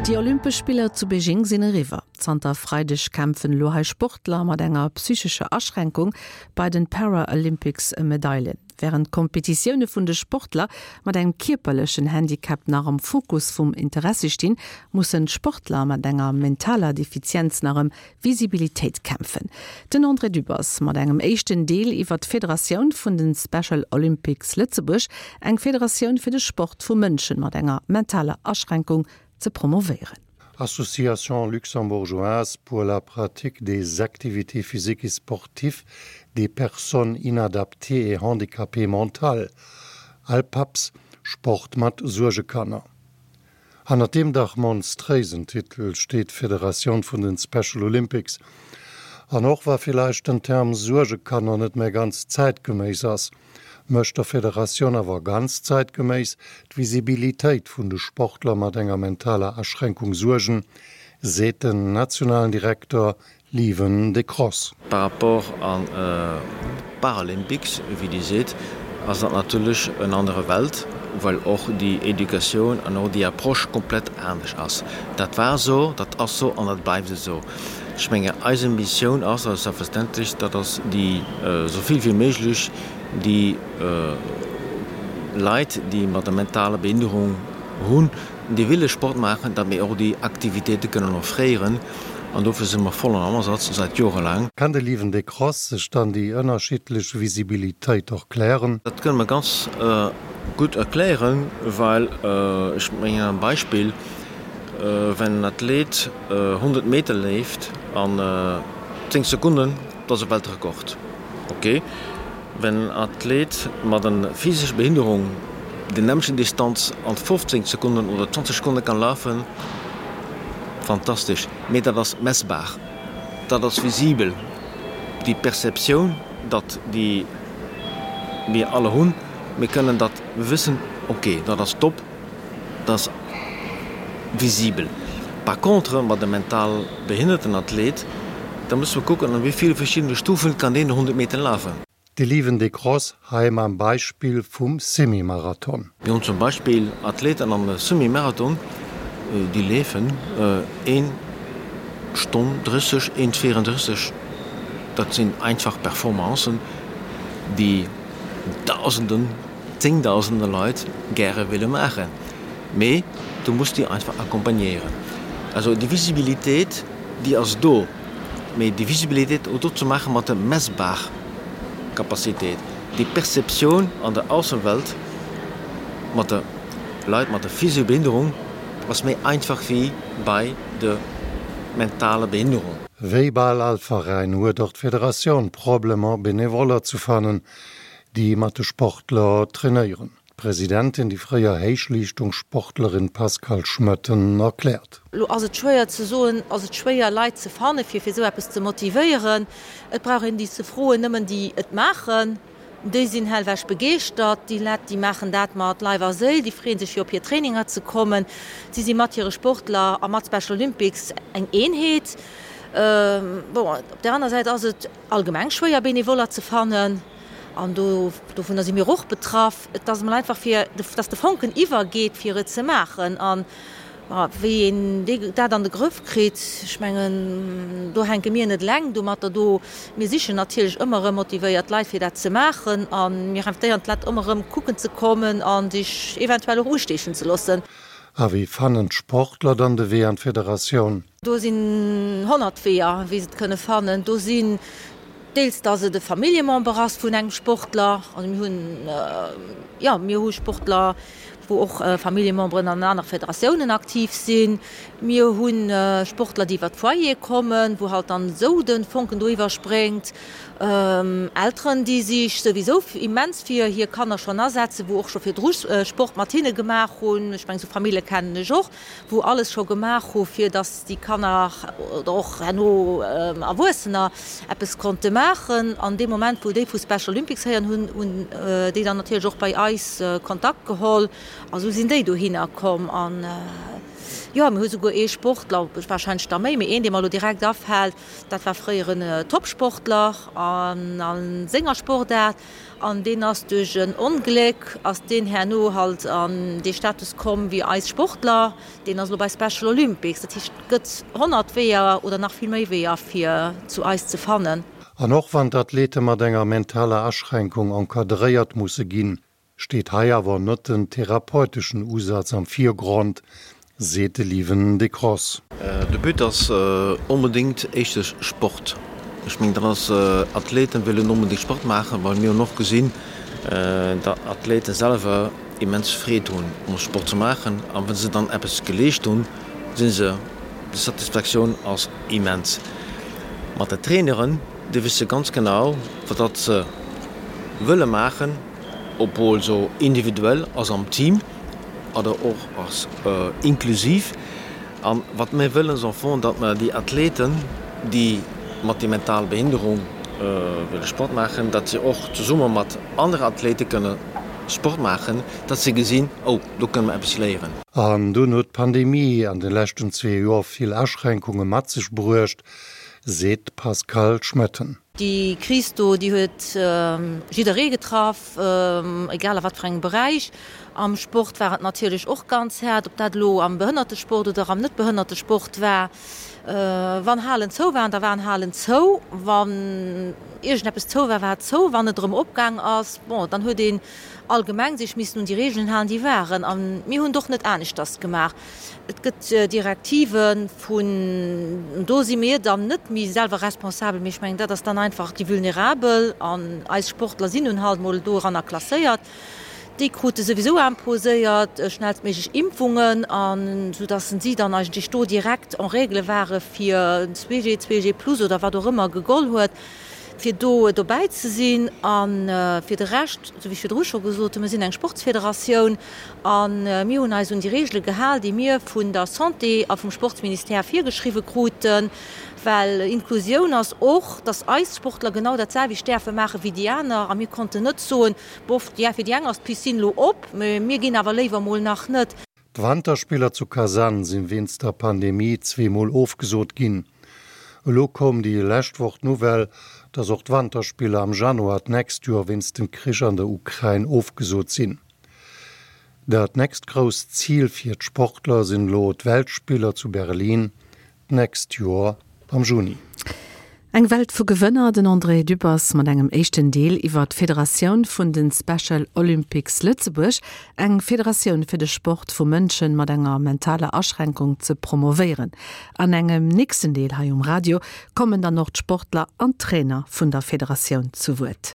Déi Olympesch Spiller zu Beijing sinn eriwwer. Zanter Freideg kämpfen elo hei Sportler mat enger psychescher Aschränkung bei den Paralympics ëm Medailen. Wärend d'Kompetitioune vun de Sportler mat engem kierperlechen Handicap nach am Fokus vum Interessi stinn, mussen d'Sportler mat enger mentaler Defizienz nach ëm Visibilitéit kämpfen. Den André Dübbers mat engem éischten Deel iwwer d'Federatioun vun de Special Olympics Lëtzebuerg, eng Federatioun fir de Sport vu Mënschen mat enger mentaler Aschränkung ze promovéieren. Association luxembourgeoise pour la pratique des activités physiques et sportives des personnes inadaptées et handicapées mentales, ALPAPS, Sport mat Suergekanner. Hannert deem dach monstréisen Titel steet d'Federatioun vun den Special Olympics. An och wa villäicht den Term Suergekanner net méi ganz zäitgeméiss ass, mécht der Federatioun awer ganz zäitgeméiss d'Visibilitéit vun de Sportler mat enger mentaler Aschränkung Suergen, seet den nationalen Direkter Lieven Decross. Par rapport an d'Paralympics, wéi Dir seet, ass dat natierlech en anere Welt, well och déi Educatioun an och déi Approche komplett anescht ass. Dat war esou, dat ass esou an dat bleift esou. Ech menge eis Missioun ass a selbstverständlech, dat ass déi esou vill wéi méiglech déi Leit, déi mat der mentaler Behinderung hunn, déi wille Sport maachen, datt mir och déi Aktivitéite kënnen offréieren an dofir si mer voll am Asaz, säit jorelaang. Kann de Lieven Decross sech dann déi ënnerschiddlech Visibilitéit erklären? Dat kënne mer ganz gutt erklären, well ech mengen en Beispill, Wenn en Athlet 100 Meter leeft an 10 Sekonnen, dat ass e Weltrekord, ok. Wenn en Athlet mat en physescher Behinderung déi nämmlechen Distanz an 15 Sekonnen oder 20 Sekonne kann lafen, fantastesch, mee dat ass messbar, dat ass visibel. Déi Perceptioun, datt déi mir alle hunn, mir kënnen dat wëssen, ok, dat ass top, dat ass visibel. Par contre mat e mental behinnerten Athlet, da musse mer kucken, an wéi ville verschiddene Stufen kann deen 100 Meter lafen. De Lieven Decross hei mam Beispill vum Semi-Marathon. Mir hunn zum Beispill Athleten am Semi-Marathon, déi leefen een Stonn 30, een 34. Dat sinn einfach Performancen, déi Dausenden, Zéngdausende Leit gäre wille maachen. Mee du muss déi einfach accompagnéieren. Also déi Visibilitéit, déi ass do, mee déi Visibilitéit och do ze maache mat der messbar Capacitéit, déi Perceptioun an der Aussenwelt mat de Leit mat der physescher Behinderung ass méi einfach wéi bei der mentaler Behinderung. Wéi bal all Veräin huet och d'Federatioun Problemer Benevoller ze fannen, déi mat de Sportler trainéieren. D'Presidentin, déi fréier Héichleeschtungssportlerin Pascale Schmoetten erkläert. Elo ass et schwéier ze soen, ass et schwéier Leit ze fanne fir fir esou eppes ze motivéieren. Et brauch een déi ze froen, nëmmen déi et maachen, déi sinn hellwech begeeschtert. Déi Lett, déi maachen dat mat Leif a Séil, déi freeën sech fir op hir Traininger ze kommen. Si si mat hire Sportler a mat Special Olympics eng Eenheet. Bon, op där aner Säit ass et allgemeng schwéier Benevoller ze fannen. An do, dovunner si mir och betraff. Et ass emol einfach fir, dass de Fonken iwwergeet, fir et ze maachen. An wéi een dee, dat an de Grëff kritt, ech mengen, do hänke mir net eleng domatter do. Mir sichen natierlech ëmmer erëm motivéiert Leit, fir dat ze maachen. A mir invitéieren d'Leit ëmmer erëm kucken ze kommen a sech eventuell och usteechen ze loossen. A wéi fannen d'Sportler dann de Wee an d'Federatioun? Do sinn 100 Weeër, wéi se et kënne fannen. Do sinn Deels dass et e Familljemember ass vun engem Sportler. Also mir hunn, jo, mir hu Sportler, wou och Familljememberen an anere Federatiounen aktiv sinn. Mir hu Sportler, déi iwwer d'Foyere kommen, wou halt dann esou de Fonken do iwwerspréngt. Elteren, déi sech souwisou immens fir hir Kanner schonn asetzen, wou och scho virdru Sport mat hinne gemaach hunn. Ech mengen, esou Famillje kennen ech och. wou alles scho gemaach hu fir datt déi Kanner oder och herno Erwuessener eppes konnte maachen. An dee Moment wou déi vu Special Olympics héieren hunn, hunn déi dann natierlech och bei eis Kontakt geholl a sou sinn déi dohinner komm. An. Jo, mir hu souguer ee Sportler, warscheinlech der méi, mee een, dee mer elo direkt afält, dat war fréier en Topsportler a senger Sportaart an deen ass duerch en Ongléck ass deen herno halt an dee Status komm wéi eis Sportler. Deen ass elo bei Special Olympics. Dat heescht, et gëtt 100 Weeër oder nach vill méi Weeër fir zu eis ze fannen. An och wann d'Athlete mat enger mentaler Aschränkung encadréiert musse ginn, steet hei awer net den therapeuteschen Usaz am Virgrond, seet de Lieven Decross. De But ass onbedéngt éischtens Sport. Ech mengen, dat ass, Athleten wëllen onbedéngt Sport maachen, well mir hunn och gesinn, datt Athlete selwer immens Freed hunn um Sport ze maachen a wa se dann eppes geleescht hunn, si se, déi Satisfaktioun ass immens. Mat de Traineren, déi wësse ganz genau, wat datt se wëlle maachen, obwuel se individuell ass am Team oder och ass inklusiv. An wat mir wëllen ass am Fong, datt mer déi Athleten, déi mat déi mental Behinderung wëlle Sport maachen, datt se och zesumme mat anere Athlete kënne Sport maachen, datt se gesinn, oh do kënne mer eppes léieren. An dunn huet d'Pandemie an de leschten zwee Joer vill Aschränkunge mat sech bruecht, seet d'Pascale Schmoetten. Déi Kris do, déi huet jidderee getraff, egal a wat fir engem Beräich. Am Sport war et natierlech och ganz haart, ob dat elo am Behënnertesport oder am Net-Behënnertesport war. Wann Halen zou waren, da waren Halen zou. Wann iergendeppes zou war, war et zou. Wann et erëm opgaang ass, bon, dann huet een allgemeng sech missen un déi Regeln halen, déi waren. A mir hunn et och net aneschters gemaach. Et gëtt Direktive vun, do si mir dann net méi selwer responsabel, mee ech mengen, dat ass dann einfach déi Vulnerabel, an eis Sportler sinn nun halt mol doranner klasséiert, déi krute souwisou imposéiert schnellstméiglech Impfungen, an soudass si dann eigentlech do direkt en règle ware fir 2G, 2G plus oder wat och ëmmer gegoll huet, fir do dobäi ze sinn. A fir de Rescht, esou wéi ech virdru scho gesot hunn, mir sinn eng Sportsfederatioun a mir hunn eis un déi Reegele gehal, déi mir vun der Santé a vum Sportsministère virgeschriwwe kruten, well Inklusioun ass och, dass eis Sportler genau dat selwecht däerfe maache wéi déi aner. A mir konnten net soen, Bof, fir déi eng ass d'Piscine elo op, mä mir ginn awer léiwer mol nach net. D'Wanterspiller zu Kasan sinn wéinst der Pandemie zweemol ofgesot ginn. Elo koum déi lescht Woch d'Nouvelle, datt och d'Wanterspiller am Januar d'nächst Joer wéinst dem Krich an der Ukrain ofgesot sinn. Dat nächst grousst Zil fir d'Sportler sinn elo d'Weltspiller zu Berlin d'nächst Joer am Juni. Eng Welt vu Gewënner, den André Dübbers mat engem éischten Deel iwwer d'Federatioun vun de Special Olympics Lëtzebuerg, eng Federatioun fir de Sport vu Mënschen mat enger mentaler Aschränkung ze promovéieren. An engem nächsten Deel hei um Radio kommen dann och d'Sportler an d'Trainer vun der Federatioun zu Wuert.